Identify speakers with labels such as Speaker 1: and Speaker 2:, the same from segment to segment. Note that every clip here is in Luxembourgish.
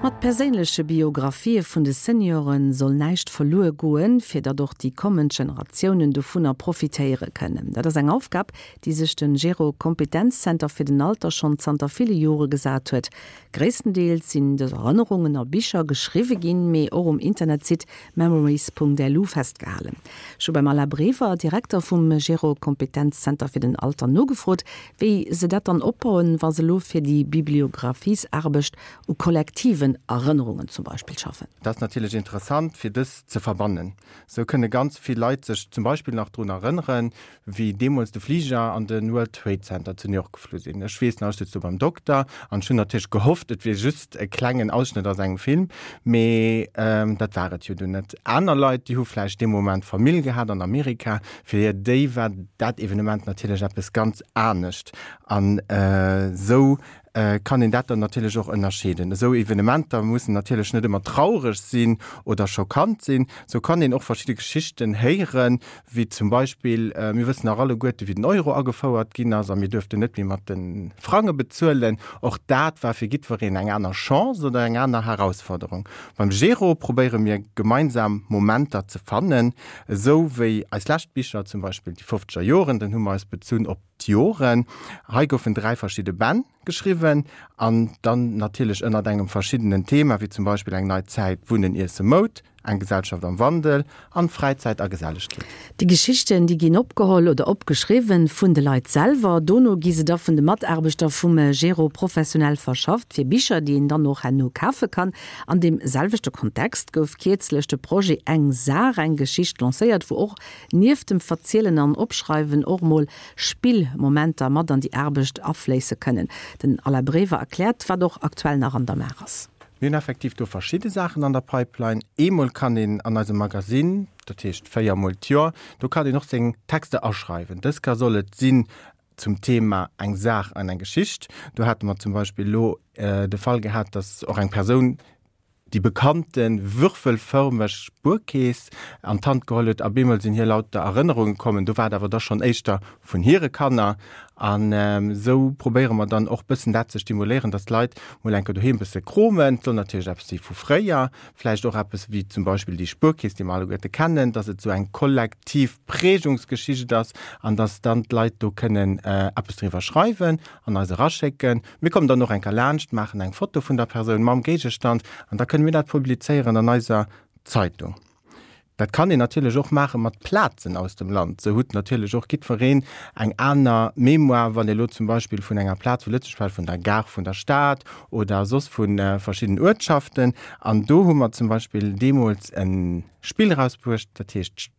Speaker 1: Mat perséinleche Biographië vun de Seniore soll näischt verluer goen, fir datt och déi kommend Generatiounen dovunner profitéiere kënnen. Dat ass eng Aufgab, déi sech de Gero Kompetenzzenter fir den Alter schonn zanter ville Jore gesat huet. Gréisstendeels sinn dës Erënnerungen a Bicher geschriwwe ginn, mee och um Internetsite memories.lu festgehalen. Ech hu beim Alain Brever, Direkter vum Gero Kompetenzzenter fir den Alter, nogefrot, wéi se dat dann opbauen, wa se elo fir déi Bibliographies-Aarbecht u kollektiven Erënnerungen zum Beispill schaffen.
Speaker 2: Dat ass natierlech interessant, fir dës ze verbannen. Sou kënne ganz vill Leit sech zum Beispill nach drun erënneren, wéi deemools de Fliger an de World Trade Center zu New York geflu sinn. Ech weess nach, ech sutz do beim Dokter an ech hunn natierlech gehofft, et wier just e klengen Ausschnëtt aus engem Film, mee dat war et jo dunn net. Aner Leit, déi hu vläicht dee Moment Famill gehat an Amerika, fir déi war dat Evenement natierlech eppes ganz anescht. An esou kann een dat dann natierlech och ënnerscheeden. Esou Evenementer mussen natierlech net ëmmer traureg sinn oder schockant sinn. Sou kann een och verschidde Geschichten héieren, wéi zum Beispill, mir wëssen nach alleguerte wéi den Euro agefouert ginn ass a mir duerften net méi mat de Frange bezuelen. Och dat war fir jiddwereen eng aner Chance oder eng aner Herausforderung. Beim Gero probéiere mir gemeinsam Momenter ze fannen, esou wéi eis lescht Bicher, zum Beispill déi fofzeger Joren, dann hu mer eis bezunn op d'Joren. Hei goufen 3 verschidde Bänn geschriwwen an dann natierlech ënnert engem verschiddenen Thema, wéi zum Beispill eng nei Zäit, Wunnen, Iesse, Moud, eng Gesellschaft am Wandel an Fräizäit a Gesellegkeet.
Speaker 1: Déi Geschichten, déi ginn opgeholl oder opgeschriwwen vun de Leit selwer. Dono gi se da vun de Mataarbechter vum Gero professionell verschafft fir Bicher, déi een dann och herno kafe kann. An deem selwechte Kontext gouf kierzlech de Projet Eng Saach, eng Geschicht lancéiert, wou och nieft dem Verzielen an Opschreiwen och mol Spillmomenter mat an déi Aarbecht afléisse kënnen. Den Alain Brever erkläert, wat och aktuell nach an der Maach ass.
Speaker 2: Mir hunn effektiv do verschidde Saachen an der Pipeline. Eemol kann een an eisem Magasinn, dat heescht 4 mol d'Joer, do kann een och seng Texter aschreiwen. Dës Kéier soll et sinn zum Thema eng Saach an eng Geschicht. Do hate mer zum Beispill elo de Fall gehat, dass och eng Persoun déi bekannte würfelfërmeg Spuerkeess an d'Hand geholl huet a bemol sinn hir lauter Erënnerunge kommen. Do war et awer da schonn éischter vun hire Kanner. An esou probéiere mer dann och bëssen dat ze stimuléieren, dass d'Leit mol eng Kéier doheem bësse kromen. Et soll natierlech eppes si vu fréier, vläicht och eppes wéi zum Beispill déi Spuerkeess, déi mer alleguerte kennen, dass et esou eng kollektiv Prägungsgeschicht ass an dass dann d'Leit do kënnen eppes driwwer schreiwen an eis eraschécken. Mir kommen dann och eng Kéier laanscht, maachen eng Foto vun der Persoun mam Géigestand an da kënne mir dat publizéieren an eiser Zeitung. Dat kann een natierlech och maache mat Plazen aus dem Land. Sou hutt natierlech och jiddwereen eng aner Mémoire, wann ee lo zum Beispill vun enger Plaz vu Lëtzebuerg schwätzt, vun der Gare vun der Stad oder soss vu verschidden Uertschaften. An do hu mer zum Beispill deemools e Spill erausbruecht, dat heescht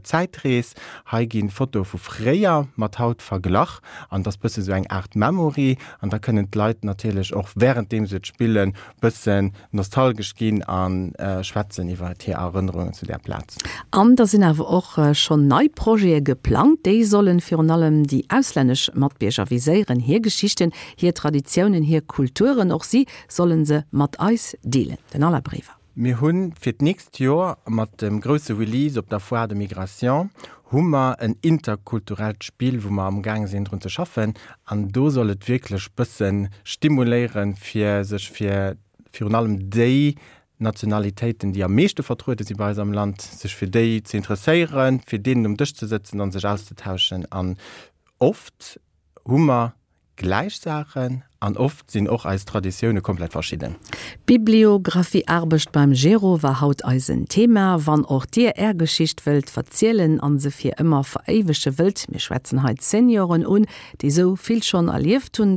Speaker 2: Zäitrees, Hei ginn Fotoe vu fréier mat haut verglach an et ass bësse sou eng Aart Memory an da kënnen d'Leit natierlech och wärenddeem se et spillen bëssen nostalgesch ginn a schwätzen iwwer hir Erënnerungen zu där Plaz.
Speaker 1: An da sinn awer och schonn nei Projete geplangt. Déi sollen virun allem déi auslännesch Matbierger viséieren, hir Geschichten, hir Traditiounen, hir Kulturen. Och si sollen se mat eis deelen. Den Alain Brever.
Speaker 2: Mir hu fir d'nächst Joer mat dem grousse Release op der Foire de Migration hu mer en interkulturellt Spill, wou mer amgaang sinn drun ze schaffen. An do soll et wierklech bësse stimuléieren, fir sech fir virun allem déi Nationalitéiten, déi am meeschte vertruede si bei eis am Land, sech fir déi ze interesséieren, fir deenen um Dësch ze sëtzen an sech auszetauschen. An oft hu mer Gläich Saachen an oft sinn och eis Traditioune komplett verschidden.
Speaker 1: Bibliographiearbecht beim Gero war haut eisen Thema. Wann och dir är Geschicht wëllt verzielen an se fir ëmmer veréiwege wëllt, mir schwätzen hei d'Senioren un, déi sou vill schonn erlieft hunn.